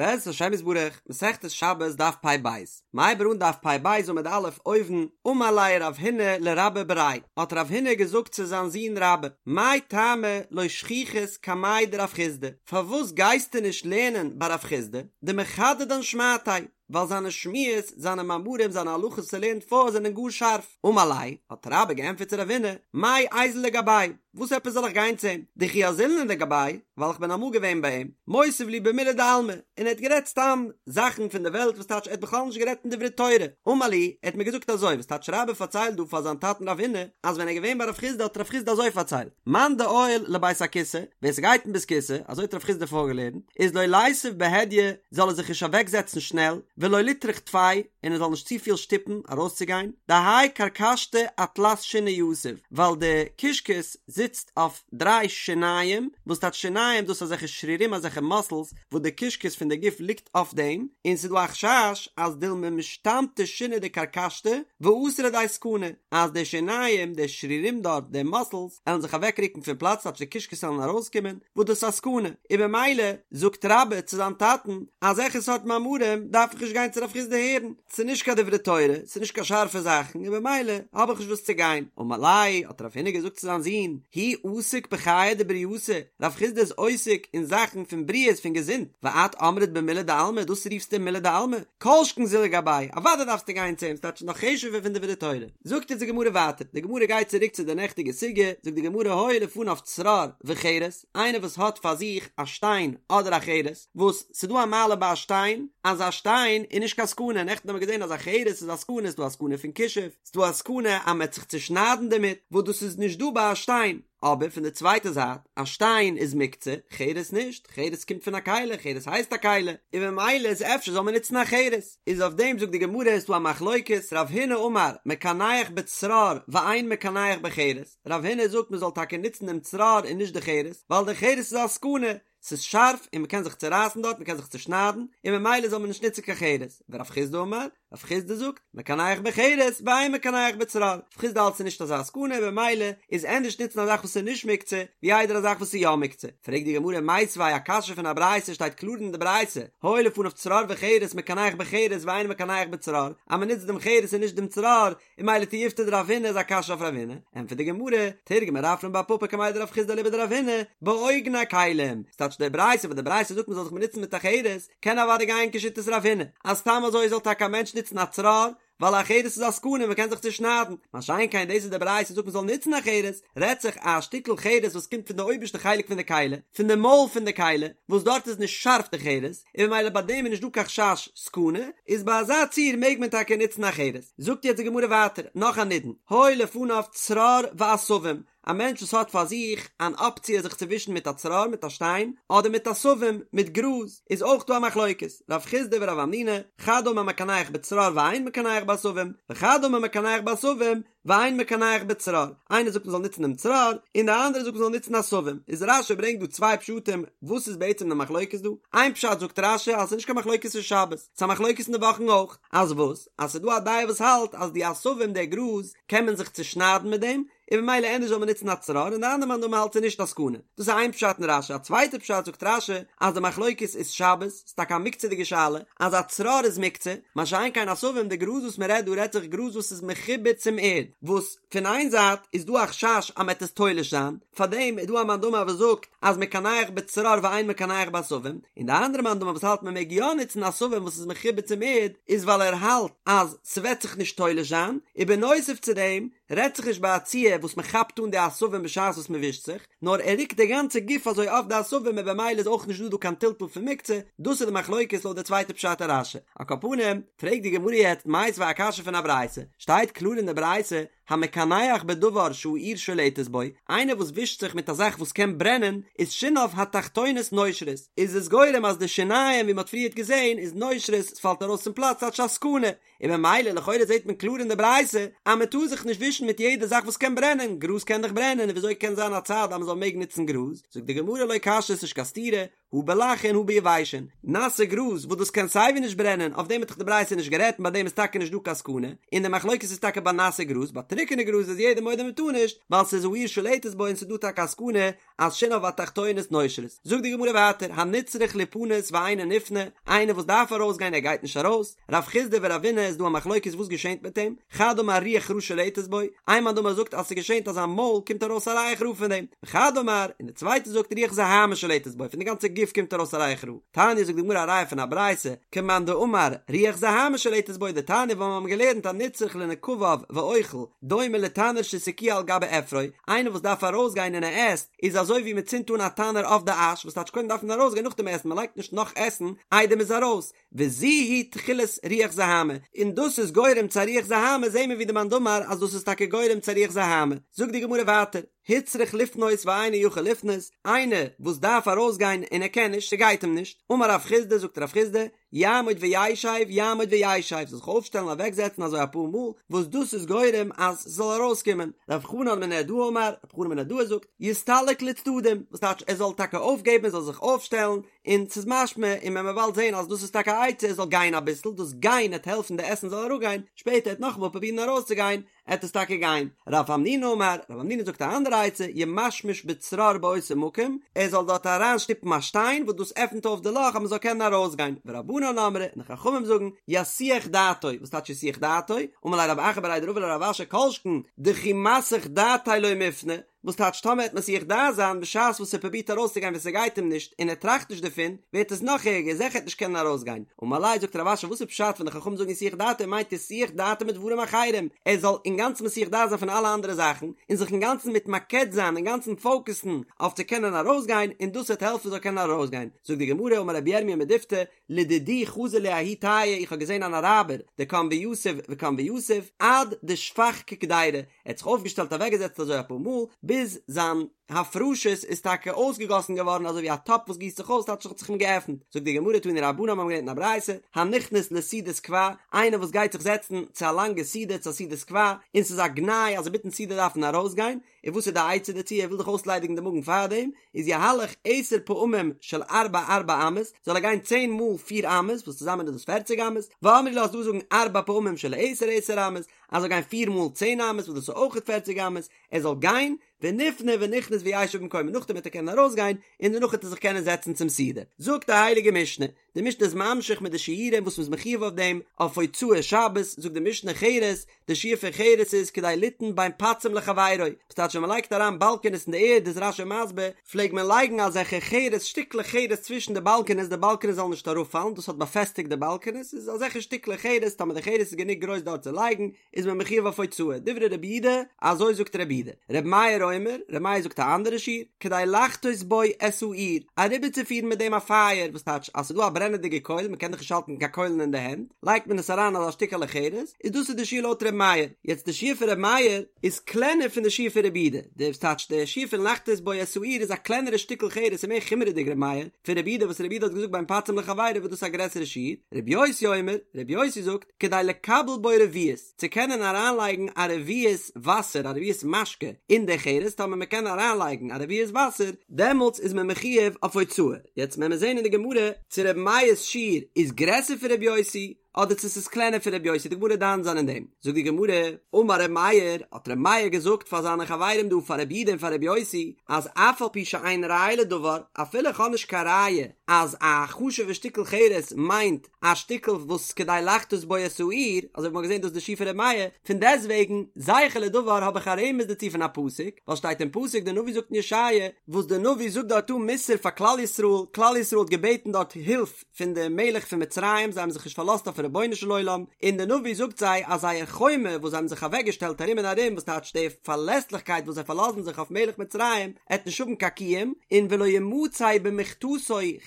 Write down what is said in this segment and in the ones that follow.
בעזרת השם יתברך, מסכת שבת דף פ"ב, מ'הייבט אן דף פ"ב עמוד א' אויבן, אמר ליה רב הונא לרבה בריה, האט רב הונא געזאגט צו זיין זון רבה, מאי טעמא לא שכיחת קמיה דרב חסדא, פארוואס גייסטו נישט לערנען ביי רב חסדא, דמחדדן שמעתיה, ווייל זיינע שמועות, זיינע מאמרים, זיינע הלכות וואס ער לערנט פאר זענען גאר שארף. אמר ליה, האט רבה געענטפערט צו רב הונא, מאי איזיל לגביה, וואס עפעס זאל איך גיין צו אים? דכי אזילנא לגביה, ווייל איך בין אמאל געווען ביי אים, מותיב לי במילי דעלמא, און ער האט גערעדט סתם זאכן פון די וועלט, וואס טייטש ער האט בכלל נישט גערעדט אין דברי תורה. אמר לי, ער האט מיר געזאגט אזוי, וואס טייטש רבה פארציילט דא פאר זיין טאטן רב הונא, אז ווען ער איז געווען ביי רב חסדא האט רב חסדא אזוי פארציילט, מאן דעייל לבית הכסא, ווער ס'גייט אין בית כסא, אזוי האט רב חסדא פארגעלערנט, איז לא ליתיב בהדיא, זאל ער זיך נישט אוועקזעצן שנעל, ולא ליטרח טפי, און ער זאל נישט צופיל שטופן ארויסצוגיין, דהאי כרכשתא אתלת שיני יתיב, ווייל די קישקעס זיצט אויף דריי שיניים, וואס טייטש שיניים? דאס איז אזעלכע שרירים אזעלכע מאסלס וואס די קישקעס פון די גוף ליגט אויף דעם, און ס'איז דא א חשש אז דילמא משתמטי שיני דכרכשתא ואתי לידי סכנה, אז די שיניים, די שרירים דארט, די מאסלס, עלן זיך אוועקרוקן פון פלאץ טייטש די קישקעס עלן ארויסקומען, וואס דאס איז א סכנה, און במילא זאגט רבה צו זיין טאטן, אזעלכע סארט מאמרים דארף איך נישט גיין צו רב חסדא הערן, ס'איז נישט קיין דברי תורה, ס'איז נישט קיין שארפע זאכן, און במילא האב איך נישט וואס צו גיין. אמר ליה, האט רב הונא געזאגט צו זיין זון, הוא עסיק בחיי דבריותא, רב חסדא איז עוסק אין זאכן פון בריאות, פון געזונט, ואת אמרת במילי דעלמא, דאס רופסטו מילי דעלמא? כל שכן זיל לגביה, אוודאי דארפסטו גיין צו אים, ס'טייטש נאך חשוב'ער פון דברי תורה. זאגט אונז די גמרא ווייטער, די גמרא גייט צוריק צו די נעכטיגע סוגיא, זאגט די גמרא היו לפניו צרור וחרס, איינער וואס האט פאר זיך א שטיין אדער א חרס, וואס ס'דא א מעלה ביי א שטיין, אז א שטיין איז נישט קיין סכנה, נעכטן האבן מיר געזען אז א חרס איז א סכנה, ס'דא א סכנה פון כישוף, ס'דא א סכנה אז מ'עט זיך צושניידן דערמיט, וואס דאס איז נישט דא ביי א שטיין, אבער פון די צווייטע זייט, א שטיין איז מוקצה, חרס נישט, חרס קומט פון א כלי, חרס הייסט א כלי, און ממילא איז אפשר זאל מען נוצן א חרס. איז אויף דעם זאגט די גמרא איז דא א מחלוקת, רב הונא אמר מקנח בצרור ואין מקנח בחרס, רב הונא זאגט מען זאל טאקע נוצן דעם צרור און נישט די חרס, ווייל די חרס איז א סכנה, ס'איז שארף און מ'קען זיך צורייסן דארט, מ'קען זיך צושניידן, און ממילא זאל מען נישט נוצן קיין חרס, ורב חסדא אמר, רב חסדא זאגט, מקנח בחרס ואין מקנח בצרור, רב חסדא האלט ס'איז נישט אזא סכנה במילא איז ענדערש נוצן א זאך וואס איז נישט מוקצה ווי איידער א זאך וואס איז יא מוקצה, פרעגט די גמרא מיתיבי א קשיא פון א ברייתא שטייט קלאר אין די ברייתא, היו לפניו צרור וחרס מקנח בחרס ואין מקנח בצרור, אז מ'נוצט דעם חרס און נישט דעם צרור, און ממילא תיובתא דרב הונא איז א קשיא אויף רב הונא, ענטפערט די גמרא, תרגמה רפרם בר פפא קמיה דרב חסדא אליבא דרב הונא, באוגני כלים, ס'טייטש די ברייתא וואס די ברייתא זאגט מ'זאל זיך באנוצן מיט א חרס, קען אוודאי גיין כשיטת רב הונא, אז סתם אזוי זאל טאקע א מענטש נוצן א צרור, ווייל א חרס איז א סכנה מ'קען זיך צושניידן, מה שאין כן דאס וואס די ברייתא זאגט מ'זאל נוצן א חרס, רעדט זיך א שטיקל חרס וואס קומט פון די אויבערשטע חלק פון די כלי, פון די מויל פון די כלי, וואס דארט איז נישט שארף די חרס, און ממילא ביי דעם איז נישט דא קיין חשש סכנה, איז ביי אזא ציור מעג מען טאקע נוצן א חרס. זאגט יעצט די גמרא ווייטער נאך א נידון, היו לפניו צרור ועשבים, א מענטש וואס האט פאר זיך אן אפציע זיך צו ווישן מיט א צרור מיט א שטיין, אדער מיט עשבים מיט גראז, איז אויך דא א מחלוקת, רב חסדא ורב המנונא, חד אמר מקנח בצרור ואין מקנח בעשבים, וחד אמר מקנח בעשבים, ואין מקנח בצרור, איינער זאגט מ'זאל נוצן דעם צרור, און דער אנדערער זאגט מ'זאל נוצן עשבים, איז רש"י ברענגט דא צוויי פשטים וואס איז בעצם די מחלוקת דא, איין פשט זאגט רש"י אז ס'איז נישט קיין מחלוקת אין שבת, ס'איז א מחלוקת אין די וואכן אויך, אז וואס? אז ס'איז דא א דעה וואס האלט אז די עשבים די גראז קען מען זיך צושניידן מיט דעם, און ממילא ענדערש זאל מען נוצן א צרור, און די אנדערע מאן דאמר האלט ס'איז נישט א סכנה. דאס איז איין פשט אין רש"י, א צווייטע פשט זאגט רש"י אז די מחלוקת איז שבת, ס'איז טאקע א מוקצה'דיגע שאלה, אז א צרור איז מוקצה, מה שאין כן עשבים, די גראז וואס מען רעדט דא רעדט זיך גראז וואס איז מחובר צום ערד, וואס פון איין זייט איז דא א חשש אז מען וועט עס תולש זיין, פארדעם איז דא א מאן דאמר וואס זאגט אז מקנח בצרור ואין מקנח בעשבים, און די אנדערע מאן דאמר וואס האלט מען מעג יא נוצן עשבים וואס איז מחובר צום ערד, איז ווייל ער האלט אז ס'וועט זיך נישט תולש זיין, און בנוסף צו דעם רעדט זיך נישט ביי א ציור וואס מען כאפט אן די עשבים בשעת וואס מען ווישט זיך, נאר ער רוקט די גאנצע גוף אזוי אויף די עשבים און במילא איז אויך נישט דא דא קיין טלטול פון מוקצה, דאס איז די מחלוקת לויט די צווייטע פשט אין רש"י. על כל פנים, פרעגט די גמרא יעצט מיתיבי א קשיא פון א ברייתא, שטייט קלאר אין די ברייתא, המקנח בדבר שהאור שולטת בו, איינער וואס ווישט זיך מיט א זאך וואס קען ברענען, איז שיניו התחתונות נושרות, איז עס גורם אז די שיניים ווי מען האט פריערט געזען איז נושרות, עס פאלט ארויס פון פלאץ ס'טייטש א סכנה, און ממילא לכאורה זעט מען קלאר אין די ברייתא אז מען טאר זיך נישט ווישן מיט יעדע זאך וואס קען ברענען, גראז קען דאך ברענען און וויאזוי קען זיין א צד אז מען זאל מעגן נוצן גראז? זאגט די גמרא לא קשיא ס'נישט קיין סתירה, הא בלחין הא ביבשין, נאסע גראז וואס דאס קען סייווי נישט ברענען, אויף דעם האט דאך די ברייתא נישט גערעדט און ביי דעם איז טאקע נישט דא קיין סכנה, און די מחלוקת איז טאקע ביי נאסע גראז, ביי טרוקענע גראז איז יעדער מודה מען טאר נישט, ווייל ס'איז האור שולטת בו און ס'איז דא טאקע א סכנה אז שיניו התחתונות נושרות. זאגט די גמרא ווייטער, הנצרך ליפנות ואינו נפנה, איינער וואס דארף ארויסגיין ער גייט נישט ארויס, רב חסדא ורבינא איז דא א מחלוקת וואס געשענט מיט אים, חד אמר רוח רעה שולטת בו, איין מאן דאמר זאגט אז ס'געשענט אז זיין מויל קומט ארויס א ריח רע פון דעם, וחד אמר, און די צווייטע זאגט רוח זוהמא שולטת בו, פון די גאנצע גוף קומט ארויס א ריח רע. תניא זאגט די גמרא א ראיה פון א ברייתא, כמאן דאמר רוח זוהמא שולטת בו דתניא ווייל מיר האבן געלערנט הנצרך לנקביו ואוכל, דומה לתנור שהסיקוהו על גבי אפרו, איינער וואס דארף ארויסגיין און ער עסט, איז אזוי ווי מען צינדט אן א תנור אויף די אש, וואס טייטש קודם דארף מען ארויסגיין נאכדעם עסן, מען לייגט נישט נאך עסן איידער מען איז ארויס, וזו היא תחילת רוח זוהמא, און דאס איז גורם צו א רוח זוהמא, זעהן מיר ווי די מאן דאמר אז דאס איז טאקע גורם צו א רוח זוהמא, זאגט די גמרא ווייטער, הוצרך לפנות ואינו יכול לפנות, איינער וואס דארף ארויסגיין און ער קען נישט, ס'גייט אים נישט, אמר רב חסדא, זאגט רב חסדא, יעמוד וישב, יעמוד וישב, זאל זיך אויפשטעלן אוועקזעצן אזוי אפאר מאל, וואס דאס איז גורם אז ס'זאל ארויסקומען, רב חנן מנהרדעא אמר, רב חנן מנהרדעא זאגט, יסתלק לצדדים, וואס טייטש ער זאל טאקע אויפגעבן, ער זאל זיך אויפשטעלן, און ס'איז משמע, און מען וועט באלד זען אז דאס איז טאקע א עצה ער זאל גיין אביסל, דאס גיין עט העלפן די עסן זאל אראפגיין, שפעטער עט נאכאמאל פרובירן ארויסצוגיין, עט עס טאקע גיין. רב המנונא אמר, רב המנונא זאגט א אנדערע עצה, ימשמש בצרור באותו מקום, ער זאל דארט אריין שטופן א שטיין וואס דאס עפנט אויף די לאך אז מען זאל קענען ארויסגיין, ורבנן אמרי, און די חכמים זאגן, יסיח דעתו, וואס טייטש יסיח דעתו? אמר ליה רב אחא בריה דרבא לרב אשי כל שכן דכי מסיח דעתיה לא מיפני, וואס טייטש טאמער עט מסיח דעת זיין בשעת וואס ער פרובירט ארויסצוגיין ווען ס'גייט אים נישט און ער טראכט נישט דערפון ווערט עס נאך ערגער זיכער עט נישט קענען ארויסגיין אמר ליה זאגט רב אשי וואס איז פשט ווען די חכמים זאגן יסיח דעתו מיינט יסיח דעתו מדברים אחרים ער זאל אינגאנצן מסיח דעת זיין פון אלע אנדערע זאכן און זיך אינגאנצן מתמקד זיין אינגאנצן פאוקעסן אויף צו קענען ארויסגיין און דאס וועט העלפן ער זאל קענען ארויסגיין זאגט די גמרא אמר רבי ירמיה מדיפתי לדידי חזי לי ההוא טייעא איך האב געזען אן אראבער דקם ויתיב וקם ויתיב עד דשפך כקדירא ער האט זיך אויפגעשטעלט אוועקגעזעצט אזוי אפאר מאל ביז זיין הפרשות איז טאקע אויסגעגאסן געווארן אזוי ווי א טאפ וואס גיסט זיך אויס טייטש האט זיך אים געעפנט זאגט די גמרא תנו רבנן מיר האבן געלערנט אין א ברייתא הנכנס לסעודת קבע איינער וואס גייט זיך זעצן צו א לאנגע סעודה צו א סעודת קבע און ס'איז א גנאי אז אינמיטן סעודה דארף מען ארויסגיין און וואס איז די עצה דערצו, ער וויל דאך אויסליידיגן די מאגן פארדעם, איז יהלך עשר פעמים של ארבע ארבע אמות, זאל ער גיין צען מאל פיר אמות, וואס צוזאמען איז דאס פערציג אמות, ואמרי לה ס'איז דא זאגן ארבע פעמים של עשר עשר אמות, אז ער זאל גיין פיר מאל צען אמות, וואס דאס איז אויכעט פערציג אמות, ער זאל גיין, ונפנה ונכנס וישב במקומו, נאכדעם וועט ער קענען ארויסגיין, און דערנאך וועט ער זיך קענען זעצן צום סעודה. זאגט די הייליגע משנה, די משנה איז ממשיך מיט די שיעורים וואס מ'איז מחויב אויף דעם, אויף הוצאת שבת, זאגט די משנה חרס, די שיעור פון חרס איז כדי ליתן בין פצים לחבירו, וואס טייטש ווען מ'לייגט אריין באלקענעס אין די ערד איז רש"י מסביר, פלעג מען לייגן אזעלכע חרס שטיקלעך חרס צווישן די באלקענעס די באלקענעס זאלן נישט אראפפאלן, דאס האט באפעסטיגט די באלקענעס, איז אזעלכע שטיקלעך חרס, טאמער די חרס איז גענוג גרויס דארט צו לייגן, איז מען מחויב אויף הוצאה, דברי רבי יהודה, אזוי זאגט רבי יהודה. רבי מאיר אומר, רבי מאיר זאגט א אנדערע שיעור, כדי לחתות בו את האור, אריבערצופירן מיט דעם א פייער, וואס טייטש אז ס'איז דא א ברענעדיגע קויל, מ'קען דאך נישט האלטן קיין קוילן אין די הענט, לייגט מען עס אריין אזא שטיקעלע חרס, איז דאס איז די שיעור לויט רבי מאיר. יעצט די שיעור פון רבי מאיר איז קלענער פון די שיעור פון רבי יהודה, די וואס טייטש די שיעור פון לחתות בו את האור איז א קלענערע שטיקל חרס און מער חומרה'דיג רבי מאיר, פון רבי יהודה וואס רבי יהודה האט געזאגט בין פצים לחבירו וואס דאס איז א גרעסערע שיעור, רבי יוסי אומר, רבי יוסי זאגט, כדי לקבל בו רביעית, צו קענען אריינלייגן א רביעית וואסער, א רביעית משקה, אין די חרס, טאמער מען קען אריינלייגן א רביעית וואסער, דעמאלטס איז מען מחויב אויף הוצאה. יעצט וועלן מיר זען אין די גמרא, צו רבי מאיר'ס שיעור איז גרעסער פון רבי יוסי, אדער צו ס'איז קלענער פון רבי יוסי, די גמרא דן זיין אין דעם. זאגט די גמרא, אמר רבי מאיר, האט רבי מאיר געזאגט פאר זיינע חברים דא, פאר רבי יהודה און פאר רבי יוסי, אז אף על פי שאין ראיה לדבר, אפילו איך האב נישט קיין ראיה אז א חשוב'ע שטיקל חרס מיינט א שטיקל וואס כדי לחתות בו את האור, אזוי ווי מ'האט געזען דאס די שיעור פון ר' מאיר, פון דעסטוועגן, זכר לדבר האב איך א רמז דערצו פון א פסוק, ווייל שטייט אין פסוק די נביא זאגט אין ישעיה, וואס די נביא זאגט דארט אן מוסר פאר כלל ישראל, כלל ישראל האט געבעטן דארט הילף פון די מלך פון מצרים, זיי האבן זיך נישט פארלאזט אויפן רבונו של עולם, און די נביא זאגט זיי אז זייער חומה וואס זיי האבן זיך אוועק געשטעלט ארום און ארום, וואס טייטש די פארלעסליכקייט וואס זיי פארלאזן זיך אויף מלך מצרים, עט נישט האבן קיין קיום, און ולא ימצא במכתתו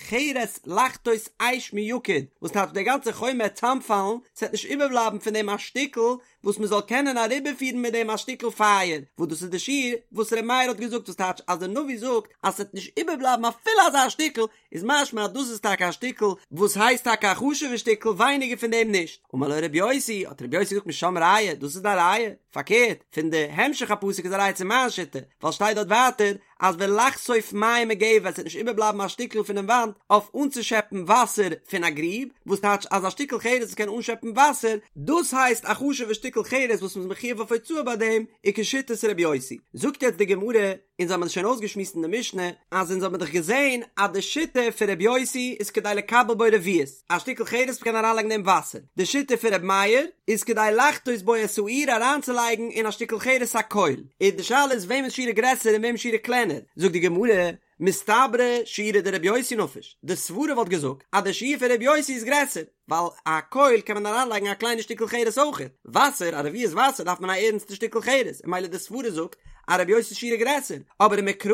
חרס לחתות אש מיקוד, וואס טייטש די גאנצע חומה עט צאמפאלן, ס'עט נישט איבערבלייבן פון דעם א שטיקל. וואס מען זאל קענען אריבערפירן מיט דעם א שטיקל פייער, וואס דאס איז די שיעור וואס ר' מאיר האט געזאגט, וואס טייטש אז די נביא זאגט אז ס'וועט נישט איבערבלייבן אפילו אזא שטיקל, איז משמע אז דאס איז טאקע א שטיקל וואס הייסט טאקע א חשוב'ע שטיקל ווייניגער פון דעם נישט. אמר לו ר' יוסי, האט ר' יוסי געזאגט משם ראיה, דאס איז דיין ראיה? פארקערט, פון די המשך הפסוק איז א ראיה צו מיין שיטה, ווייל שטייט דארט ווייטער אז ולחשוף מים מגבע עס וועט נישט איבערבלייבן א שטיקל פונעם וואנט אויף אנצושעפן וואסער פון א גריב, וואס טייטש אז א שטיקל חרס וואס קען אנשעפן וואסער, דאס הייסט א חשוב'ע שטיקל חרס וואס מ'איז מחויב אויף הוצאה ביי דעם, איז כשיטת ר' יוסי. זאגט יעצט די גמרא, אונז האבן עס שוין אויסגעשמועסט אין די משנה, אז אונז האבן דאך געזען אז די שיטה פון ר' יוסי איז כדי לקבל בו רביעית, א שטיקל חרס וואס מ'קען אריינלייגן אין דעם וואסער, די שיטה פון ר' מאיר איז כדי לחתות בו את האור אריינצולייגן אין א שטיקל חרס א קויל, און די שאלה איז וועמענס שיעור איז גרעסער און וועמענס שיעור איז קלענער, זאגט די גמרא, מסתברא שיעורא דרבי יוסי נפיש, די סברה וואלט געזאגט אז די שיעור פון ר' יוסי איז גרעסער, ווייל א קויל קען מען אריינלייגן א קליינע שטיקל חרס אויכעט, וואסער, א רביעית וואסער דארף מען א ערנסטע שטיקל חרס, און ממילא די סברה זאגט אז רבי יוסי'ס שיעור איז גרעסער, אבער ומקרא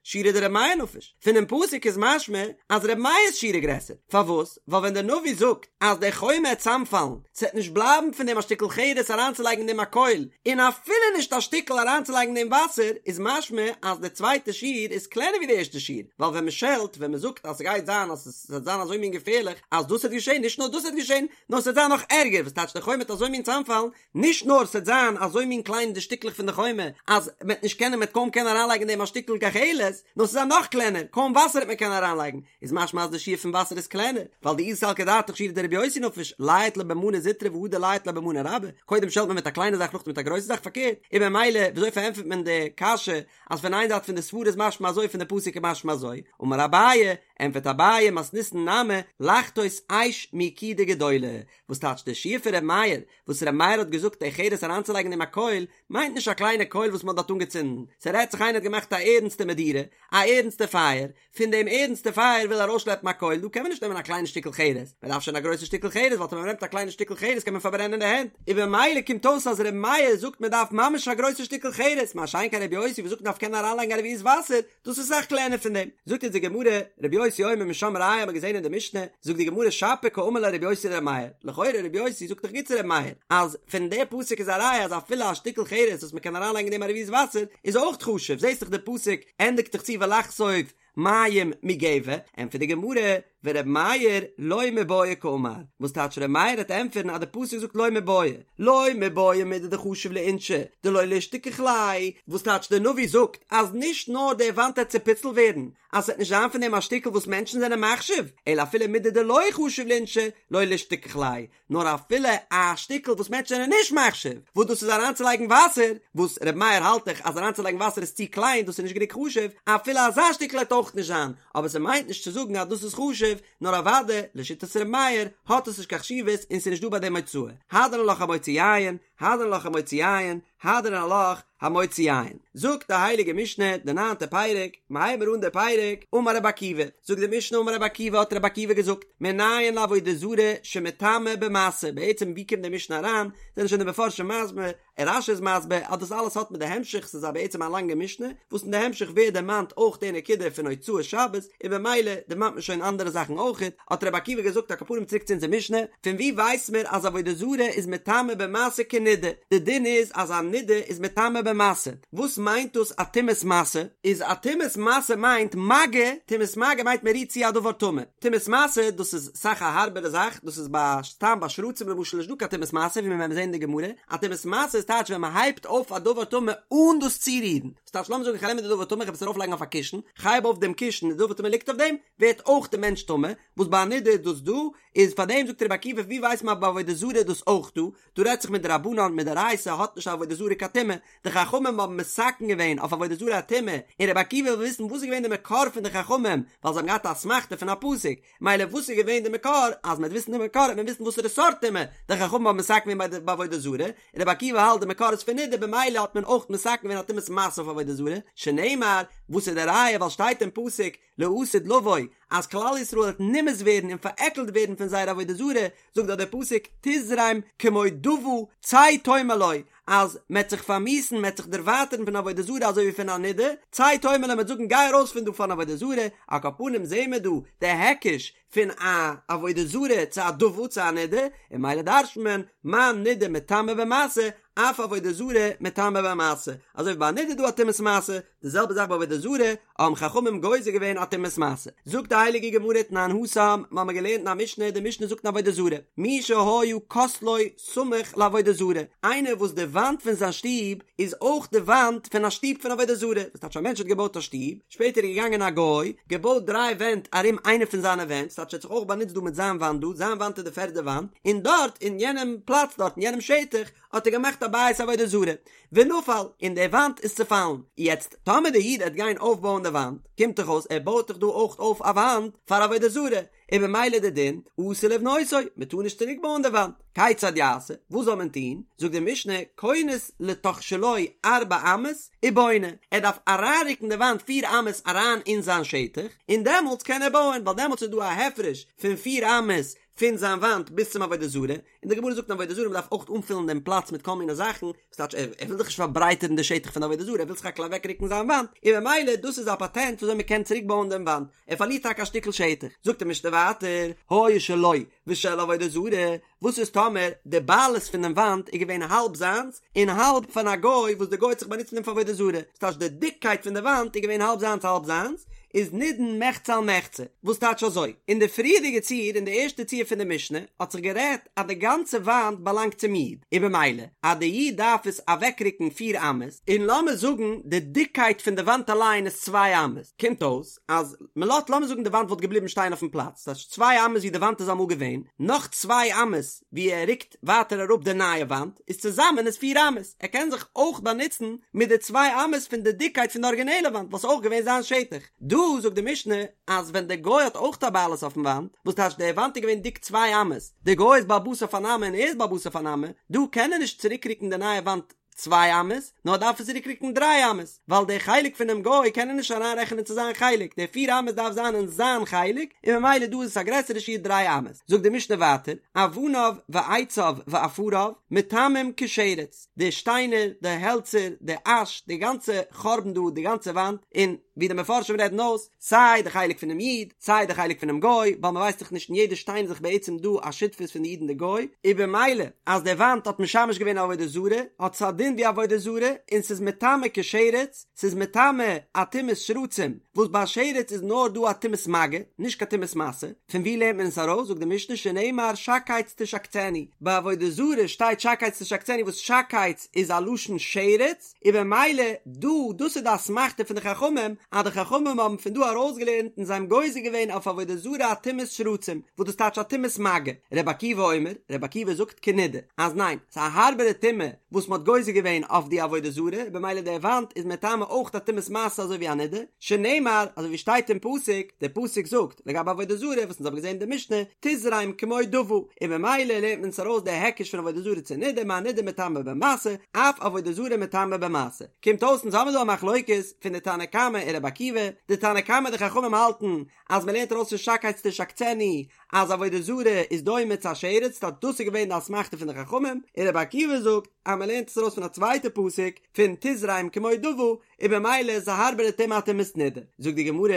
שיעורא דרבי מאיר נפיש, פונעם פסוק איז משמע אז רבי מאיר'ס שיעור איז גרעסער, פארוואס? ווייל ווען דער נביא זאגט אז די חומה העט צאמפאלן, ס'עט נישט בלייבן פון דעם א שטיקל חרס אריינצולייגן אין דעם א קויל, און אפילו נישט א שטיקל אריינצולייגן אין דעם וואסער, איז משמע אז די צווייטע שיעור איז קלענער ווי די ערשטע שיעור, ווייל ווען מ'שעלט, ווען מ'זאגט אז ס'גייט זיין אז ס'וועט זיין אזוי מין געפערליך אז דאס וועט געשען, נישט נאר דאס וועט געשען, נאר ס'וועט זיין נאך ערגער, וואס טייטש די חומה וועט אזוי מין צאמפאלן, נישט נאר ס'וועט זיין אזוי מין קליין די שטיקלעך פון די חומה אז מ'וועט נישט קענען מ'וועט קוים קענען אריינלייגן אין דעם א שטיקל גחלת, נאר ס'וועט זיין נאך קלענער, קוים וואסער וועט מען קענען אריינלייגן, איז משמע אז די שיעור פון וואסער איז קלענער, ווייל דאי סלקא דעתך שיעורא דרבי יוסי נפיש, לייט ליה במנא זוטרא והדר לייט ליה במנא רבה, קודם שעלט מען מיט א קליינע זאך נאכדעם מיט א גרויסע זאך פארקערט, און ממילא וויאזוי פארענטפערט מען די קשיא אז פון איין זייט פון די סברה איז משמע אזוי פון די פסוק איז משמע אזוי, אמר אביי, ענטפערט אביי מתניתין נמי, לחתות אש מיקידה גדולה, וואס טייטש די שיעור פון ר' מאיר, וואס ר' מאיר האט געזאגט די חרס אריינצולייגן אין דעם א קויל, מיינט נישט א קליינע קויל וואס מען האט דארט אנגעצינדן, ס'רעדט זיך איינער האט געמאכט א ערנסטע מדורה, א ערנסטע פייער, פון דעם ערנסטע פייער וויל ארויסשלעפן א קויל, דא קען מען נישט נעמען א קליינע שטיקל חרס, מען דארף שוין א גרויסע שטיקל חרס, ווייל טאמער מען נעמט א קליינע שטיקל חרס קען מען פארברענען די הענט, און במילא קומט אויס אז ר' מאיר זאגט מען דארף ממש א גרויסע שטיקל חרס, מה שאין כן ר' יוסי וואס זאגט מען דארף קענען אריינלייגן א רביעית וואסער, דאס איז אסאך קלענער פון דעם. זאגט אונז די גמרא, רבי יוסי אומר משם ראיה האט מען געזען אין די משנה, זאגט די גמרא שפיר קאמר ליה רבי יוסי לרבי מאיר, לכאורה רבי יוסי זאגט דאך גוט צו רבי מאיר, אז פון די פסוק איז א ראיה אז אפילו א שטיקל חרס וואס מען קען אריינלייגן אין דעם א רביעית וואסער איז אויך חשוב, זעסט דאך די פסוק ענדיגט דאך צו ולחשוף מים מגבע, ענטפערט די גמרא, ור' מאיר לא מיבעיא קאמר, וואס טייטש ר' מאיר העט ענטפערן אז די פסוק זאגט לא מיבעיא, לא מיבעיא מידי דחשיב לאינשי דלא לישתכח ליה, וואס טייטש די נביא זאגט אז נישט נאר די וואנט העט צופיצלט ווערן, אז ס'וועט נישט זיין פון דעם א שטיקל וואס מענטשן זענען מחשיב, אלא אפילו מידי דלא חשיב לאינשי לא לישתכח ליה, נאר אפילו א שטיקל וואס מענטשן זענען נישט מחשיב, וואס דאס איז אריינצולייגן וואסער, וואס ר' מאיר האלט דאך אז אריינצולייגן וואסער איז צו קליין, דאס איז נישט גענוג חשוב, אפילו אזא שטיקל העט אויך נישט זיין, אבער ס'מיינט נישט צו זאגן אז דאס איז חשוב, נאר אוודאי, לשיטת ר' מאיר, האט עס נישט קיין חשיבות און ס'איז נישט דא ביי דעם הוצאה. הדרן עלך המוציא יין, הדרן עלך המוציא יין, הדרן עלך המוציא יין. זאגט די הייליגע משנה, די ניינטע פרק, מ'הייבן מיר אן די פרק, אמר רבי עקיבא, זאגט די משנה אמר רבי עקיבא האט רבי עקיבא געזאגט, מנין לעבודה זרה שמטמאה במשא, בעצם ווי קומט די משנה אריין, זענען שוין די מפרשים מסביר, און רש"י איז מסביר אז דאס אלעס האט מיט די המשך, ס'איז א בעצם א לאנגע משנה, וואס אין די המשך ווערט דערמאנט אויך די נקודה פון הוצאת שבת, און במילא דערמאנט מען שוין אנדערע זאכן אויכעט, האט רבי עקיבא געזאגט על כל פנים צוריק צו אונזער משנה, פון ווי ווייסט מיר אז עבודה זרה איז מטמא במשא כנידה, די דין איז אז א נידה איז מטמא במשא, וואס מיינט דאס א טומאת משא? איז א טומאת משא מיינט מגע, טומאת מגע מיינט מען רירט צו א דבר טמא, טומאת משא דאס איז אסאך א הארבערע זאך, דאס איז ביי סתם ביי שרצים למשל נישט דא קיין טומאת משא ווי מיר וועלן זען אין די גמרא, א טומאת משא איז טייטש ווען מען הייבט אויף א דבר טמא אן דאס צורירן, וואס טייטש לאמיר זאגן איך נעם די דבר טמא איך וועל עס ארויף לייגן אויף א קישן, כ'הייב אויף דעם קישן די דבר טמא ליגט אויף דעם, ווערט אויך די מענטש טמא, וואס ביי א נידה איז דאס דא, איז פאר דעם זאגט רבי עקיבא ווי ווייסט מען אז ביי עבודה זרה איז דאס אויך דא, דא רעדט זיך מדרבנן מדאורייתא האט נישט עבודה זרה קיין טומאה, די חכמים האבן מתקן געווען אויף עבודה זרה א טומאה, און רבי עקיבא וויל וויסן וואס איז געווען די מקור פון די חכמים, ווייל זיי האבן געהאט א אסמכתא פון א פסוק, מילא וואס איז געווען די מקור, אז מען וועט וויסן די מקור וועט מען וויסן וואסערע סארט טומאה די חכמים האבן מתקן געווען ביי ביי עבודה זרה, און רבי עקיבא האלט די מקור איז פון נידה במילא האט מען אויך מתקן געווען א טומאת משא אויף עבודה זרה, שנאמר, וואס איז די ראיה ווייל שטייט אין פסוק לעתיד לבוא אז כלל ישראל וועט נמאס ווערן און פארעקלט ווערן פון זייער עבודה זרה, זאגט דארט דער פסוק תזרם כמו דוה צא תאמר לו, אז מ'עט זיך פארמיאוסן, מ'עט זיך דערווייטערן פון עבודה זרה אזוי ווי פון א נידה, צא תאמר לו מ'עט זאגן גיי ארויס פון דא פארן עבודה זרה, על כל פנים זעהן מיר דא די היקש פון א עבודה זרה צו א דוה צו א נידה, און ממילא דרש'נט מען מה נידה מטמאה במשא, אף עבודה זרה מטמאה במשא, אזוי ווי ביי א נידה איז דא א טומאת משא, די זעלבע זאך ביי עבודה זרה, האבן חכמים גוזר געווען א טומאת משא. זאגט די הייליגע גמרא תנן התם, מיר האבן געלערנט אין א משנה, די משנה זאגט אין עבודה זרה, מי שהיה כותלו סמוך לעבודה זרה, איינער וואס די וואנט פון זיין שטוב איז אויך די וואנט פון א שטוב פון עבודה זרה, וואס טייטש א מענטש האט געבויט א שטוב, שפעטער איז געגאנגען א גוי, געבויט דריי ווענט ארום איינע פון זיינע ווענט, ס'טייטש ער האט זיך אויך באנוצט דא מיט זיין וואנט דא, זיין וואנט איז די פערדע וואנט, און דארט אין יענעם פלאץ דארט אין יענעם שטח האט ער געמאכט א בית עבודה זרה, ונפל, און די וואנט איז צופאלן, יעצט טאמער די איד עט גיין אויפבויען די וואנט, קומט דאך אויס ער בויט דאך דא אויך אויף א וואנט פאר עבודה זרה, און במילא די דין, אסור לבנותו, מען טאר נישט צוריק בויען די וואנט, כיצד יעשה, וואס זאל מען טון, זאגט די משנה, כונס לתוך שלו ארבע אמות, ובונה, ער דארף אריינרוקן די וואנט פיר אמות אריין אין זיין שטח, און דעמאלטס קען ער בויען, ווייל דעמאלטס איז דא א הפרש פון פיר אמות פון זיין וואנט ביז צום עבודה זרה, און די גמרא זאגט אין עבודה זרה מען דארף אויך אנפילן דעם פלאץ מיט כל מיני זאכן, וואס טייטש ער וויל דאך נישט פארברייטערן די שטח פון די עבודה זרה, ער וויל סך הכל אוועקרוקן זיין וואנט, און במילא דאס איז א פאטענט וויאזוי מען קען צוריק בויען דעם וואנט, ער פארלירט טאקע א שטיקל שטח. זאגט די משנה ווייטער, היה שלו ושל עבודה זרה, וואס איז טאמער די בעלות פון דעם וואנט איז געווען האלב זיינס און האלב פון א גוי וואס די גוי האט זיך באנוצט מיט דעם פאר עבודה זרה, ס'טייטש די דיקקייט פון די וואנט איז געווען האלב זיינס האלב זיינס, איז נידון מחצה על מחצה, וואס טייטש אזוי? אין די פריערדיגע ציור, אין די ערשטע ציור פון די משנה, האט זיך גערעדט אז די גאנצע וואנט באלאנגט צום איד, און במילא אז די איד דארף עס אוועקרוקן פיר אמות, און לאמיר זאגן די דיקקייט פון די וואנט אליין איז צוויי אמות, קומט אויס אז מען לאזט לאמיר זאגן די וואנט וואלט געבליבן שטיין אויפן פלאץ, ס'טייטש צוויי אמות ווי די וואנט איז אמאל געווען, נאך צוויי אמות ווי ער רוקט ווייטער אראפ די נייע וואנט, איז צוזאמען איז פיר אמות, ער קען זיך אויך באנוצן מיט די צוויי אמות פון די דיקקייט פון די ארגינעלע וואנט וואס איז אויך געווען זיין שטח. דא זאגט די משנה אז ווען די גוי האט אויך א בעלות אויפן וואנט, וואס טייטש די וואנט איז געווען דיק צוויי אמות, די גוי איז בעל הבית אויף אן אמה און ער איז בעל הבית אויף אן אמה, דא קען ער נישט צוריקרוקן די נייע וואנט צוויי אמות, נאר דארף עס צוריקרוקן דריי אמות, ווייל די חלק פונעם גוי קען ער נישט אריינרעכענען צו זיין חלק, די פיר אמות דארף זיין אין זיין חלק, און ממילא דא איז עס א גרעסערע שיעור דריי אמות. זאגט די משנה ווייטער, אבניו ועציו ועפריו מטמאים כשרץ, די שטיינער, די העלצער, די אש, די גאנצע חורבן דא, די גאנצע וואנט, און ווי די מפרשים רעדן אויס, סיי די חלק פונעם איד, סיי די חלק פונעם גוי, ווייל מ'ווייסט דאך נישט אין יעדע שטיין איז דאך בעצם דא א שותפות פון די איד און די גוי, און במילא אז די וואנט האט משמש געווען עבודה זרה, האט עס א דין ווי עבודה זרה, און ס'איז מטמא כשרץ, ס'איז מטמא א טומאת שרצים, וואס ביי שרץ איז נאר דא א טומאת מגע, נישט קיין טומאת משא, פון ווי לערנט מען עס ארויס, זאגט די משנה שנאמר שקץ תשקצנו, ביי עבודה זרה שטייט שקץ תשקצנו וואס שקץ איז א לשון שרץ, און במילא דא, דאס איז די אסמכתא פון די חכמים, אז די חכמים האבן פון דא ארויסגעלערנט און זיי האבן גוזר געווען אויף עבודה זרה א טומאת שרצים, וואס דאס טייטש א טומאת מגע. רבי עקיבא אומר, רבי עקיבא זאגט כנידה, אז ניין, ס'איז א הארבערע טומאה וואס מ'האט גוזר געווען אויף די עבודה זרה, במילא די וואנט איז מטמא אויך א טומאת משא אזוי ווי א נידה, שנאמר, אזוי ווי שטייט אין פסוק, דער פסוק זאגט, לגבי עבודה זרה וואס אונז האבן געזען אין די משנה, תזרם כמו דוה, און במילא לערנט מען עס ארויס די היקש פון עבודה זרה צו נידה, מה נידה מטמאה במשא, אף עבודה זרה מטמאה במשא. קומט אויס אונז האבן דא א מחלוקת פון די תנא קמא און רבי עקיבא, די תנא קמא די חכמים האלטן אז מען לערנט ארויס פון שקץ תשקצנו אז עבודה זרה איז דומה צו א שרץ, טא דאס איז געווען די אסמכתא פון די חכמים, און רבי עקיבא זאגט אז מען לערנט עס ארויס פון א צווייטע פסוק פון תזרם כמו דוה, און במילא איז א הארבערע טומאה א טומאת נידה. זאגט די גמרא,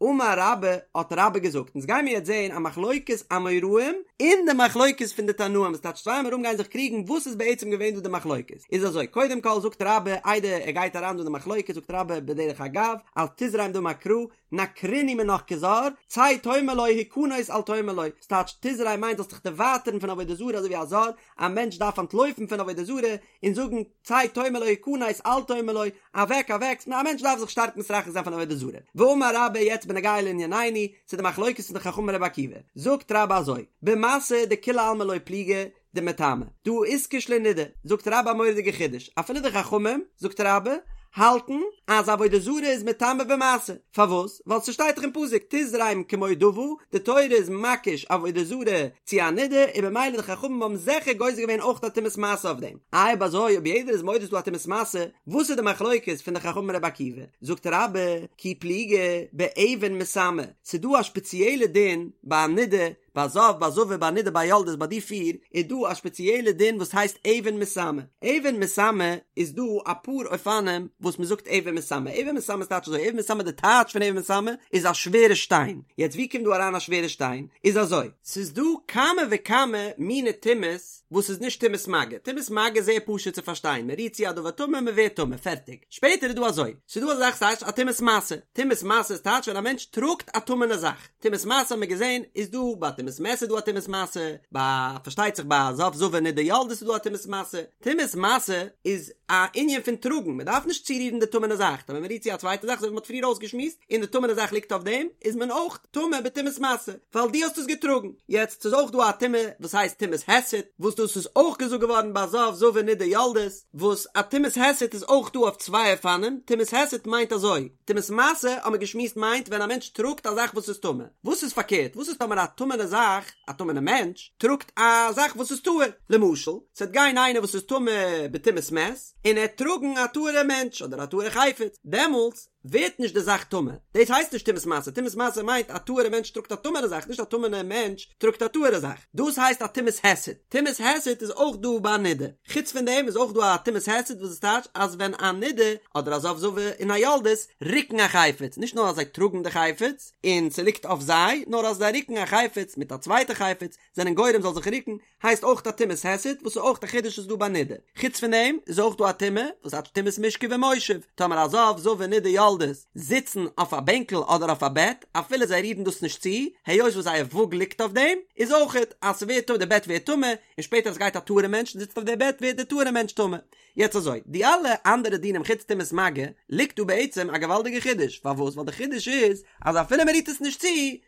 אמר רבה, האט רבה געזאגט, אונז גיימיר יעצט זעהן א מחלוקת אמוראים אין די מחלוקת פון די תנאים, וואס טייטש צוויי אמוראים גייען זיך קריגן וואס איז בעצם געווען דא די מחלוקת, איז אזוי, קודם כל זאגט רבה, איידער ער גייט אריין דא אין די מחלוקת זאגט רבה בדרך אגב, אז תזרם דאמר קרא, נקרינהו מינך כזר, צא תאמר לו הכנס אל תאמר לו, ס'טייטש תזרם מיינט זאלסט דיך דערווייטערן פון עבודה זרה אזוי ווי א זר, א מענטש דארף אנטלויפן פון עבודה זרה, און זאגן צא תאמר לו הכנס אל תאמר לו, אוועק אוועק, א מענטש דארף זיך שטארק מתרחק זיין פון עבודה זרה. ואמר רבה יעצט בנוגע לענינינו, צו די מחלוקת פון די חכמים רבי עקיבא, זאגט רבה אזוי, במשא דכולי עלמא לא פליגי דמטמא, דהא איתקש לנידה, זאגט רבה א מורא'דיגע חידוש, אפילו די חכמים, זאגט רבה, האלטן אז עבודה זרה איז מטמא במשא, פארוואס? ווייל ס'שטייט דאך אין פסוק תזרם כמו דוה, די תורה איז מקיש עבודה זרה צו א נידה, און במילא די חכמים האבן זיכער גוזר געווען אויך א טומאת משא אויף דעם. איי אויב אזוי אויב יעדער איז מודה ס'איז דא א טומאת משא, וואס איז די מחלוקת פון די חכמים רבי עקיבא? זאגט רבה, כי פליגי באבן מסמא, ס'איז דא א שפעציעלע דין ביי א נידה. ביי זב, ביי זבה, ביי נידה, ביי יולדת, ביי די פיר, איז דא א שפעציעלע דין וואס הייסט אבן מסמא. אבן מסמא איז דא אפאר אופנים וואס מען זאגט אבן מסמא. אבן מסמא איז טייטש אזוי, אבן מסמא די טייטש פון אבן מסמא איז א שווערע שטיין. יעצט ווי קומט דא אריין א שווערע שטיין? איז אזוי. ס'איז דא כמה וכמה מיני טומאות וואס איז נישט טומאת מגע. טומאת מגע איז זייער פשוט צו פארשטיין, מען רירט צו א דבר טמא מען ווערט טמא, פערטיג. שפעטער איז דא אזוי, ס'איז דא אזא זאך ס'הייסט א טומאת משא. טומאת משא איז טייטש ווען א מענטש טראגט א טמא'נע זאך. טומאת משא האט מען געזען איז דא ביי טומאת מת איז דא א טומאת משא, ביי פארשטייט זיך ביי זב זבה נידה יולדת איז דא א טומאת משא, טומאת משא איז א ענין פון טראגן, מען דארף נישט צורירן די טמא'נע זאך, טאמער מען רירט צו א צווייטע זאך אזוי ווי מען האט פריער אויסגעשמועסט, און די טמא'נע זאך ליגט אויף דעם, איז מען אויך טמא בטומאת משא, ווייל דו האסט עס געטראגן. יעצט ס'איז אויך דא א טומאה וואס הייסט טומאת היסט, וואס דאס איז אויך געזאגט געווארן ביי זב זבה נידה יולדת, וואס א טומאת היסט איז אויך דא אויף צוויי אופנים, טומאת היסט מיינט אזוי, טומאת משא האט מען געשמועסט מיינט ווען א מענטש טראגט א זאך וואס איז טמא, וואס איז פארקערט וואס איז טאמער א טמא'נע זאך, א טמא'נע מענטש, טראגט א זאך וואס איז טהור, למשל, ס'וועט גיין איינער וואס איז טמא בטומאת מת, און ער וועט טראגן א טהור'ע מענטש אדער א טהור'ע חפץ, דעמאלטס ווערט נישט די זאך טמא, דאס הייסט נישט טומאת משא, טומאת משא מיינט א טהור'ע מענטש טראגט א טמא'נע זאך, נישט א טמא'נע מענטש טראגט א טהור'ע זאך, דאס הייסט א טומאת היסט, טומאת היסט איז אויך דא ביי נידה. חוץ פון דעם איז אויך דא א טומאת היסט וואס איז טייטש אז ווען א נידה אדער א זב זבה און א יולדת רוקן א חפץ, נישט נאר אז זיי טראגן די חפץ און ס'ליגט אויף זיי, נאר אז זיי רוקן א חפץ מיט א צווייטע חפץ זענען גורם זאל זיך רוקן, הייסט אויך א טומאת היסט וואס איז אויך א חידוש איז דא ביי נידה. חוץ פון דעם איז אויך דא א טומאה וואס הייסט טומאת משכב ומושב, טאמער א זב זבה נידה יולדת זיצן אויף א בענקל אדער אויף א בעט אפילו זיי רירן דאס נישט צו, היות וואס זייער וואג ליגט אויף דעם, איז אויכעט אז ס'ווערט טמא די בעט ווערט טמא, און שפעטער אז גייט א טהור'ע מענטש און זיצט אויף די בעט ווערט די טהור'ע מענטש טמא. יעצט אזוי, די אלע אנדערע דינים חוץ טומאת מגע, ליגט דא בעצם א געוואלדיגע חידוש, פארוואס? ווייל די חידוש איז אז אפילו מען רירט עס נישט צו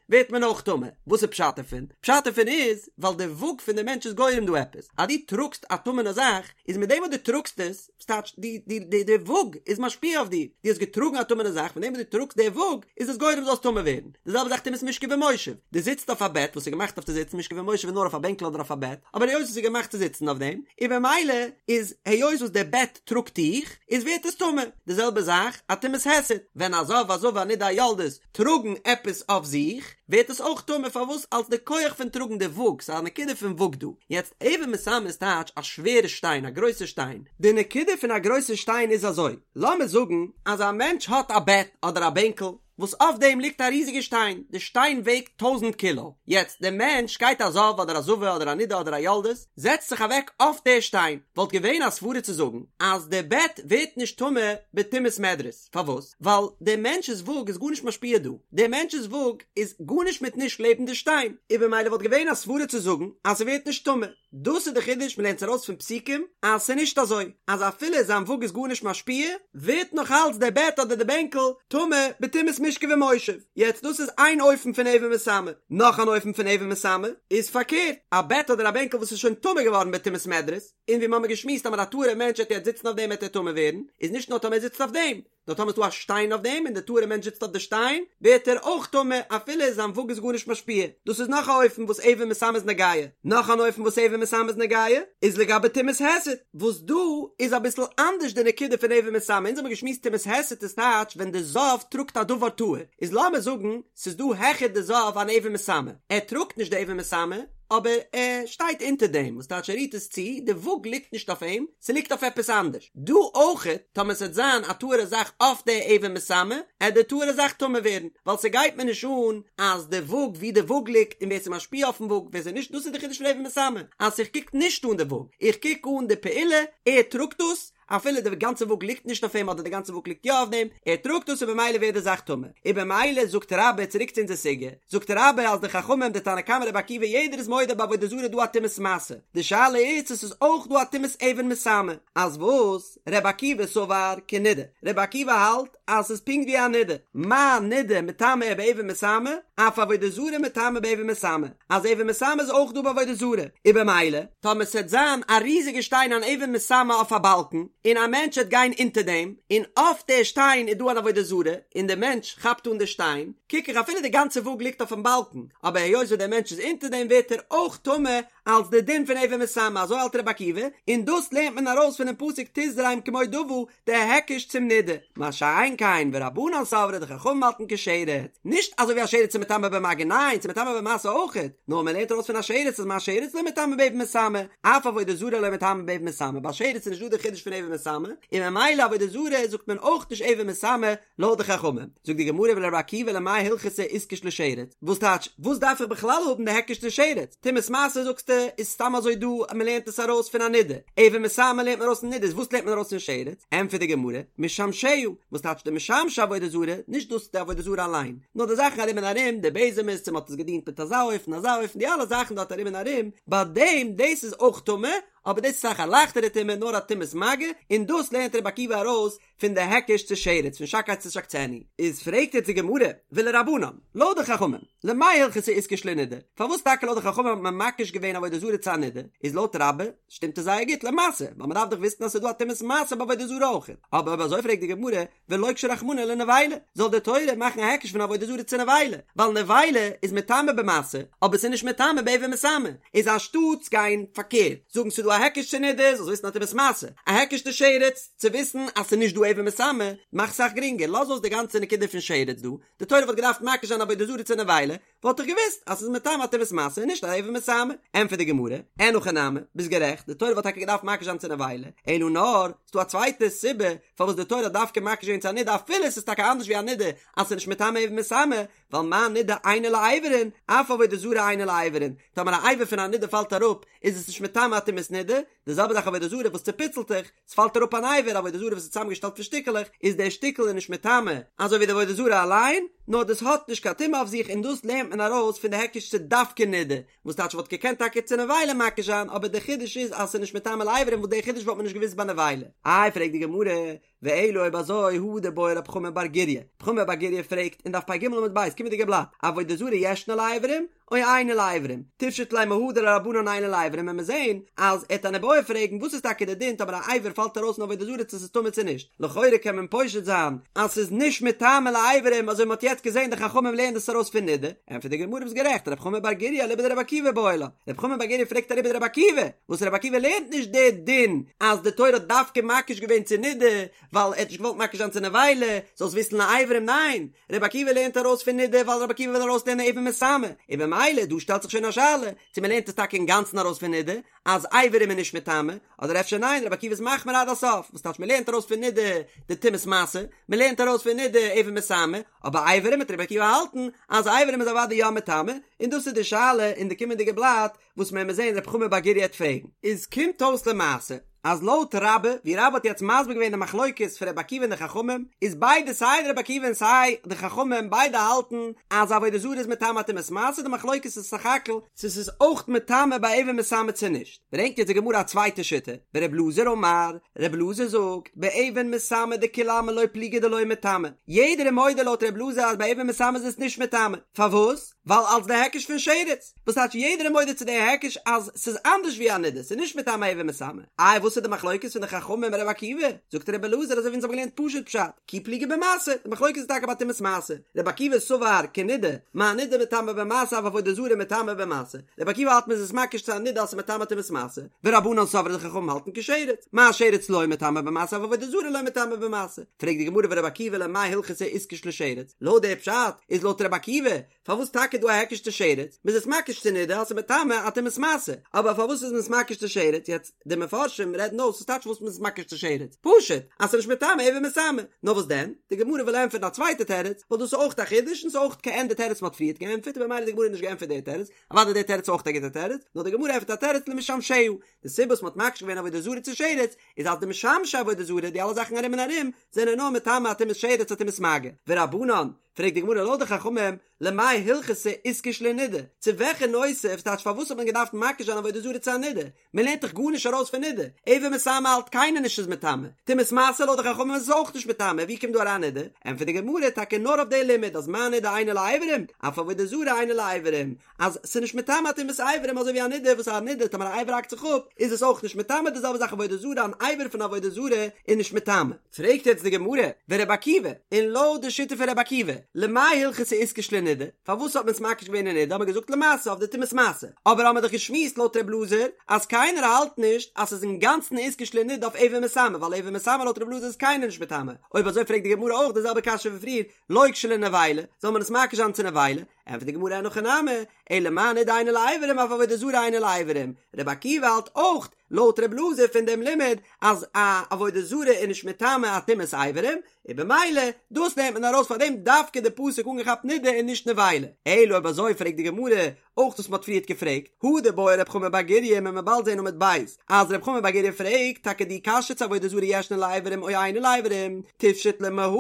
ווערט מען אויך טמא. וואס איז פשט דערפון? פשט דערפון איז ווייל די וואג פון די מענטש איז גורם דא עפעס. אז דו טראגסט א טמא'נע זאך, איז מיט דעם וואס דו טראגסט עס, ס'טייטש די די די די וואג איז משפיע אויף דיר, דו האסט געטראגן א טמא'נע זאך, פון דעם וואס דו טראגסט די וואג איז עס גורם זאלסט טמא ווערן. די זעלבע זאך טומאת משכב ומושב, דו זיצט אויף א בעט וואס איז געמאכט אויף צו זיצן, משכב ומושב איז נאר אויף א בענקל אדער אויף א בעט, אבער היות עס איז געמאכט צו זיצן אויף דעם, און במילא איז היות וואס די בעט טראגט דיך, איז ווערט עס טמא. די זעלבע זאך א טומאת היסט, ווען א זב א זבה א נידה א יולדת טראגן עפעס אויף זיך, ווערט עס אויך טמא, פארוואס? אלס די כח פון טראגן די וואג, ס'איז א נקודה פון וואג דא. יעצט אבן מסמא איז טייטש א שווערע שטיין, א גרויסע שטיין. די נקודה פון א גרויסע שטיין איז אזוי, לאמיר זאגן אז א מענטש האט א בעט אדער א בענקל, וואס אויף דעם ליגט א ריזיגע שטיין, די שטיין וועגט טויזנט קילא, יעצט דער מענטש גייט א זב אדער א זבה אדער א נידה אדער א יולדת, זעצט זיך אוועק אויף דער שטיין, וואלט געווען א סברה צו זאגן אז די בעט ווערט נישט טמא בטומאת מדרס, פארוואס? ווייל דער מענטש'ס וואג איז גארנישט משפיע דא, דער מענטש'ס וואג איז גארנישט מיט נישט לעבן די שטיין, און במילא וואלט געווען א סברה צו זאגן אז ס'ווערט נישט טמא. דאס איז די חידוש, מ'לערנט עס ארויס פון פסוקים אז ס'איז נישט אזוי אז אפילו זיין וואג איז גארנישט משפיע, ווערט נאך אלץ דער בעט אדער די בענקל טמא בטומאת משכב ומושב. יעצט דאס איז איין אופן פון אבן מסמא, נאך אן אופן פון אבן מסמא איז פארקערט, א בעט אדער א בענקל וואס איז שוין טמא געווארן בטומאת מדרס, און ווי מ'האמיר געשמועסט אז מיט א טהור'ע מענטש וועט יעצט זיצן אויף דעם וועט ער טמא ווערן, איז נישט נאר טאמער ער זיצט אויף דעם, נאר טאמער איז דא א שטיין אויף דעם און די טהור'ע מענטש זיצט אויף די שטיין, ווערט ער אויך טמא אפילו זיין וואג איז גארנישט משפיע. דאס איז נאך א אופן וואס אבן מסמא איז נוגע. נאך אן אופן וואס אבן מסמא איז נוגע, איז לגבי טומאת היסט, וואס דא איז אביסל אנדערש די נקודה פון אבן מסמא, אונז האבן געשמועסט טומאת היסט איז טייטש ווען די זב טראגט א דבר טהור, איז לאמיר זאגן ס'איז דא העכער די זב אן אבן מסמא, ער טראגט נישט די אבן מסמא, אבער ער שטייט אונטער דעם, וואס טייטש ער רירט עס צו, די וואג ליגט נישט אויף אים, ס'ליגט אויף עפעס אנדערש. דא אויכעט, טאמער ס'עט זיין א טהור'ע זאך אויף די אבן מסמא, עט די טהור'ע זאך טמא ווערן, ווייל ס'גייט מיר נישט אן אז די וואג ווי די וואג ליגט און ווער ס'משפיע אויפן וואג ווער ס'נישט, דאס איז די חידוש פון אבן מסמא, אז איך קוק נישט אן די וואג, איך קוק אן די פעולה, ער טראגט דאס, אפילו די גאנצע וואג ליגט נישט אויף אים אדער די גאנצע וואג ליגט יא אויף דעם, ער טראגט דאס און במילא ווערט די זאך טמא. און במילא זאגט רבה, צוריק צו אונזער סוגיא, זאגט רבה אז די חכמים, די תנא קמא רבי עקיבא יעדער איז מודה ביי עבודה זרה איז דא א טומאת משא, די שאלה איז צו ס'איז אויך דא א טומאת אבן מסמא, אז וואס? רבי עקיבא סבר כנידה, רבי עקיבא האלט אז ס'איז פונקט ווי א נידה, מה נידה מטמאה באבן מסמא, אף עבודה זרה מטמאה באבן מסמא, אז אבן מסמא איז אויך דא ביי עבודה זרה, און במילא, טאמער ס'עט זיין א ריזיגע שטיין אן אבן מסמא אויף א באלקן, און א מענטש עט גיין אונטער דעם, און אויף די שטיין איז דא אן עבודה זרה, און די מענטש כאפט אן די שטיין, קוק איך אפילו די גאנצע וואג ליגט אויפן באלקן, אבער היות וואס דער מענטש איז אונטער דעם ווערט ער אויך טמא. אלס די דין פון אבן מסמא, אזוי האלט רבי עקיבא, און דאס לערנט מען ארויס פונעם פסוק תזרם כמו דוה, די היקש צום נידה, מה שאין כן ורבנן סברי די חכמים האלטן כשרץ, נישט אזוי ווי א שרץ איז מטמא במגע ניין ס'איז מטמא במשא אויכעט, נאר מען לערנט ארויס פון א שרץ אז מה שרץ לא מטמא באבן מסמא, אף עבודה זרה לא מטמא באבן מסמא, ביי שרץ איז נישט דא די חידוש פון אבן מסמא, און ממילא עבודה זרה זאגט מען אויך נישט אבן מסמא לויט די חכמים. זאגט די גמרא ולרבי עקיבא למאי הלכתא איתקש לשרץ, וואס טייטש וואס דארף איך בכלל האבן די היקש צו שרץ, טומאת משא זאגסטו איז סתם אזוי דא אז מען לערנט עס ארויס פון א נידה, אבן מסמא לערנט מען ארויס פון נידה איז וואס לערנט מען ארויס פון שרץ? ענטפערט די גמרא, משמשיה, וואס טייטש די משמשי עבודה זרה, נישט דאס די עבודה זרה אליין, נאר די זאכן ארום און ארום, די בעזעמעס צו מען האט עס געדינט מיט אזא אופן אזא אופן די אלע זאכן דארט ארום און ארום, ביי דעם דאס איז אויך טמא, אבער דאס איז אסאך א לייכטערע טומאה נאר א טומאת מגע, און דאס לערנט רבי עקיבא ארויס פון די היקש צו שרץ פון שקץ תשקצנו, איז פרעגט יעצט די גמרא, ולרבנן, לויט די חכמים, למאי הלכתא איתקש לנידה, פארוואס טאקע לויט די חכמים האט מען מקיש געווען עבודה זרה צו א נידה, איז לויט רבה שטימט עס זייער גוט למשא, ווייל מען דארף דאך וויסן אז ס'איז דא א טומאת משא ביי עבודה זרה אויך, אבער אויב אזוי פרעגט די גמרא, ולוקשה רחמנא לנבילה, זאל די תורה מאכן א היקש פון עבודה זרה צו נבילה, ווייל נבילה איז מטמא במשא, אבער ס'איז נישט מטמא באבן מסמא, איז אנשטאטס גיין פארקערט, זאגן ס'איז דא א היקש צו נידה, זאלסט וויסן א טומאת משא, א היקש צו שרץ, צו וויסן אז ס'איז נישט דא אבן מסמא, מאך סאך גרינגער, לאז אויס די גאנצע נקודה פון שרץ דא, די תורה וואלט געדארפט מקיש זיין עבודה זרה צו נבילה, וואלט איך געוואוסט אז ס'איז מטמא א טומאת משא און נישט א אבן מסמא. ענטפערט די גמרא, אין הכי נמי, ביסט גערעכט, די תורה וואלט טאקע געדארפט מקיש זיין צו נבילה, אלא נאר, ס'דא א צווייטע סיבה פארוואס די תורה האט דווקא מקיש געווען צו א נידה אפילו ס'איז טאקע אנדערש ווי א נידה אז ס'איז נישט מטמא אבן מסמא, ווייל מה נידה אינה לאיברין, אף עבודה זרה אינה לאיברין, טאמער א אבר פון א נידה פאלט אראפ איז עס נישט מטמא א טומאת נידה, די זעלבע זאך עבודה זרה וואס צופיצלט זיך, ס'פאלט אראפ אן אבר, עבודה זרה וואס איז צוזאמגעשטעלט פון שטיקעלעך, איז דער שטיקל איז נישט מטמא, אזוי ווי די עבודה זרה אליין, נאר דאס האט נישט קיין טומאה אויף זיך און דאס לערנט מען ארויס פון די היקש צו דווקא נידה, וואס טייטש וואלט געקענט טאקע צו נבילה מקיש זיין, אבער דער חידוש איז אז ס'איז נישט מטמא לאיברים וואס דער חידוש וואלט מען נישט געוואוסט ביי נבילה. איי פרעגט די גמרא, ואלא אויב אזוי הא דבעי רב חמא בר גוריא, רב חמא בר גוריא פרעגט אין דף פ"ג עמוד ב', קומענדיגע בלאט, עבודה זרה ישנה לאיברים או אינה לאיברים, תפשוט ליה מהא דלרבנן אינה לאיברים וועט מען זעהן אז ער וועט אן איבעיא פרעגן וואס איז טאקע די דין טאמער א אבר פאלט ארויס אין עבודה זרה צו ס'איז טמא צו נישט, לכאורה קען מען פושט זיין אז ס'איז נישט מטמא לאיברים אזוי מ'האט יעצט געזעהן די חכמים לערנען דאס ארויס פון נידה, ענטפערט די גמרא ביסט גערעכט רב חמא בר גוריא אליבא דרבי עקיבא בעי לה, רב חמא בר גוריא פרעגט אליבא דרבי עקיבא, וואס רבי עקיבא לערנט נישט די דין אז די תורה האט דווקא מקיש געווען צו נידה ווייל ער האט נישט געוואלט מקיש זיין צו נבילה, זאלסט וויסן לאיברים ניין, רבי עקיבא לערנט ארויס פון נידה ווייל רבי עקיבא וויל ארויסלערנען אבן מסמא, און במילא דא שטעלט זיך שוין א שאלה צו מען לערנט עס טאקע אינגאנצן ארויס פון נידה אז אברים איז נישט מטמא, אדער אפשר ניין רבי עקיבא איז מחמיר עד הסוף, וואס טייטש מען לערנט ארויס פון נידה די טומאת משא, מען לערנט ארויס פון נידה אבן מסמא, אבער אברים וועט רבי עקיבא האלטן אז אברים איז אוודאי יא מטמא, און דאס איז די שאלה אין די קומענדיגע בלאט וואס מען וועט זען רב חמא בר גוריא וועט פרעגן. איז קומט אויס למעשה אז לויט רבה, ווי רבה האט יעצט מסביר געווען די מחלוקת פון רבי עקיבא און די חכמים, איז ביידע סיי רבי עקיבא און סיי די חכמים ביידע האלטן אז עבודה זרה איז מטמא טומאת משא, די מחלוקת איז סך הכל צו ס'איז אויך מטמא ביי אבן מסמא צו נישט. ברענגט יעצט די גמרא א צווייטע שיטה, ור' אלעזר אמר, ר' אלעזר זאגט, באבן מסמא דכולי עלמא לא פליגי דלא מטמא, יעדער איז מודה לויט ר' אלעזר אז ביי אבן מסמא איז עס נישט מטמא, פארוואס? ווייל אלס די היקש פון שרץ, וואס טייטש יעדער איז מודה צו די היקש אז ס'איז אנדערש ווי א נידה, ס'איז נישט מטמא אבן מסמא. איי וואס איז די מחלוקת פון די חכמים און ר' עקיבא? זאגט ר' אלעזר אזוי ווי אונז האבן געלערנט פשוט פשט, כי פליגי במשא, די מחלוקת איז טאקע ביי טומאת משא, ר' עקיבא סבר כנידה, מה נידה מטמא במשא אף עבודה זרה מטמא במשא, ר' עקיבא האלט מ'איז עס מקיש צו א נידה אז ס'איז מטמא טומאת משא, ורבנן סברי די חכמים האלטן כשרץ, מה שרץ לא מטמא במשא אף עבודה זרה לא מטמא במשא. פרעגט די גמרא ור' עקיבא למאי הלכתא איתקש לשרץ, לויט די פשט איז לויט ר' עקיבא פארוואס טאקע דא א היקש צו שרץ, מ'איז עס מקיש צו נידה אז ס'איז מטמא א טומאת משא, אבער פארוואס איז מען עס מקיש צו שרץ, יעצט די מפרשים רעדן אויס וואס טייטש וואס מ'איז עס מקיש צו שרץ, פשוט אז ס'איז נישט מטמא אבן מסמא, נאר וואס דען, די גמרא וויל ענטפערן א צווייטע תירוץ, ווייל דאס איז אויך א חידוש און ס'איז אויך כעין די תירוץ מ'האט פריערט געענטפערט און במילא די גמרא האט נישט געענטפערט די תירוץ, אוודאי די תירוץ איז אויך א גוטע תירוץ, נאר די גמרא ענטפערט א תירוץ למשמשיה, די סיבה וואס מ'האט מקיש געווען עבודה זרה צו שרץ, איז אז די משמשי עבודה זרה, די אלע זאכן ארום און ארום, זענען נאר מטמא א טומאת שרץ א טומאת מגע. ורבנן, פרעגט די גמרא לויט די חכמים, למאי הלכתא איתקש לנידה, צו וועלכע נושא, ס'טייטש פארוואס האט מען געדארפט מקיש זיין עבודה זרה צו א נידה, מען לערנט דאך גארנישט ארויס פון נידה, אבן מסמא האלט קיינער נישט איז מטמא, טומאת משא לויט די חכמים איז עס אויך נישט מטמא, ווי קומט דא אריין נידה? ענטפערט די גמרא, טאקע נאר אויף די לימוד אז מה נידה אינה לאיברים, אף עבודה זרה אינה לאיברים, אז ס'איז נישט מטמא טומאת אברים אזוי ווי א נידה וואס א נידה טאמער א אבר האקט זיך אפ איז עס אויך נישט מטמא די זעלבע זאך עבודה זרה אן אבר פון עבודה זרה איז נישט מטמא. פרעגט יעצט די גמרא, ור' עקיבא, און לויט די שיטה פון ר' עקיבא, למאי הלכתא איתקש לנידה, פארוואס האט מען עס מקיש געווען אין נידה, האט מען געזאגט למשא אויף די טומאת משא, אבער האמער דאך געשמועסט לויט ר' אלעזר אז קיינער האלט נישט אז ס'איז אינגאנצן איתקש לנידה אויף אבן מסמא, ווייל אבן מסמא לויט ר' אלעזר איז קיינער נישט מטמא, אויב אזוי פרעגט די גמרא אויך די זעלבע קשיא ווי פריער, לוקשה לנבילה, זאל מען עס מקיש זיין צו נבילה? ענטפערט די גמרא אין הכי נמי, אלא מה נידה אינה לאיברים אף עבודה זרה אינה לאיברים, רבי עקיבא האלט אויך לויט רבי אלעזר פון דעם לימוד אז א עבודה זרה איז נישט מטמא א טומאת איברים, און במילא דאס נעמט מען ארויס פאר דעם דווקא די פסוק אנגעכאפט נידה און נישט נבילה. אלא אויב אזוי פרעגט די גמרא אויך וואס מ'האט פריערט געפרעגט, הא דבעי רב חמא בר גוריא מען וועט באלד זען עמוד ב' אז רב חמא בר גוריא פרעגט טאקע די קשיא צו עבודה זרה ישנה לאיברים או אינה לאיברים, תפשוט לה מהא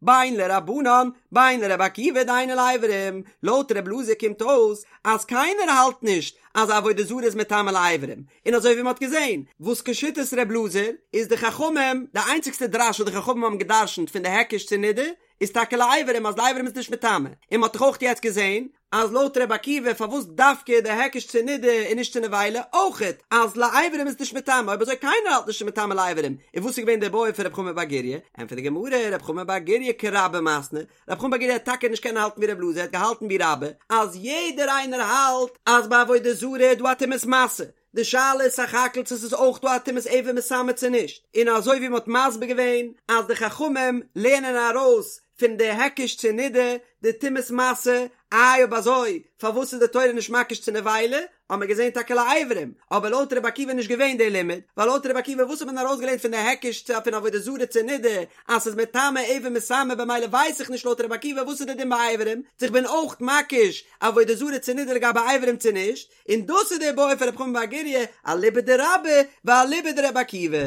בין לרבנן בין לרבי עקיבא דאינה לאיברים, לויט ר' אלעזר קומט אויס אז קיינער האלט נישט אז עבודה זרה איז מטמא לאיברים, און אזוי ווי מ'האט געזען וואס כשיטת ר' אלעזר איז די חכמים די איינציגסטע דרש וואס די חכמים האבן געדרשנט פון די היקש צו נידה איז טאקע לאיברים אז לאיברים איז נישט מטמא, און מ'האט דאך אויך יעצט געזען אז לויט ר' עקיבא פארוואס דווקא די היקש צו נידה און נישט צו נבילה, אויכעט אז לאיברים איז נישט מטמא, אויב אזוי קיינער האלט נישט מטמא לאיברים, און וואס איז געווען די בעיא פון רב חמא בר גוריא? ענטפערט די גמרא, רב חמא בר גוריא כרבה מתני, רב חמא בר גוריא האט טאקע נישט קענען האלטן ווי רב אלעזר, ער האט געהאלטן ווי רבה, אז יעדער איינער האלט אז ביי עבודה זרה איז דא א טומאת משא, די שאלה איז סך הכל צו ס'איז אויך דא א טומאת אבן מסמא צו נישט, און אזוי ווי מ'האט מסביר געווען אז די חכמים לערנען ארויס פון די היקש צו נידה די טומאת משא, איי אויב אזוי פארוואס איז די תורה נישט מקיש צו נבילה, האט מען געזען טאקע לאיברים, אבער לויט רבי עקיבא איז נישט געווען די לימוד, ווייל לויט רבי עקיבא וואס האט מען ארויסגעלערנט פון די היקש צו פון עבודה זרה צו נידה אז ס'איז מטמא אבן מסמא במילא ווייס איך נישט לויט רבי עקיבא וואס איז די דין ביי איברים, צו איך בין אויך מקיש עבודה זרה צו נידה לגבי איברים צו נישט, און דאס איז די בעיא פון רב חמא בר גוריא, אליבא דרבה ואליבא דרבי עקיבא.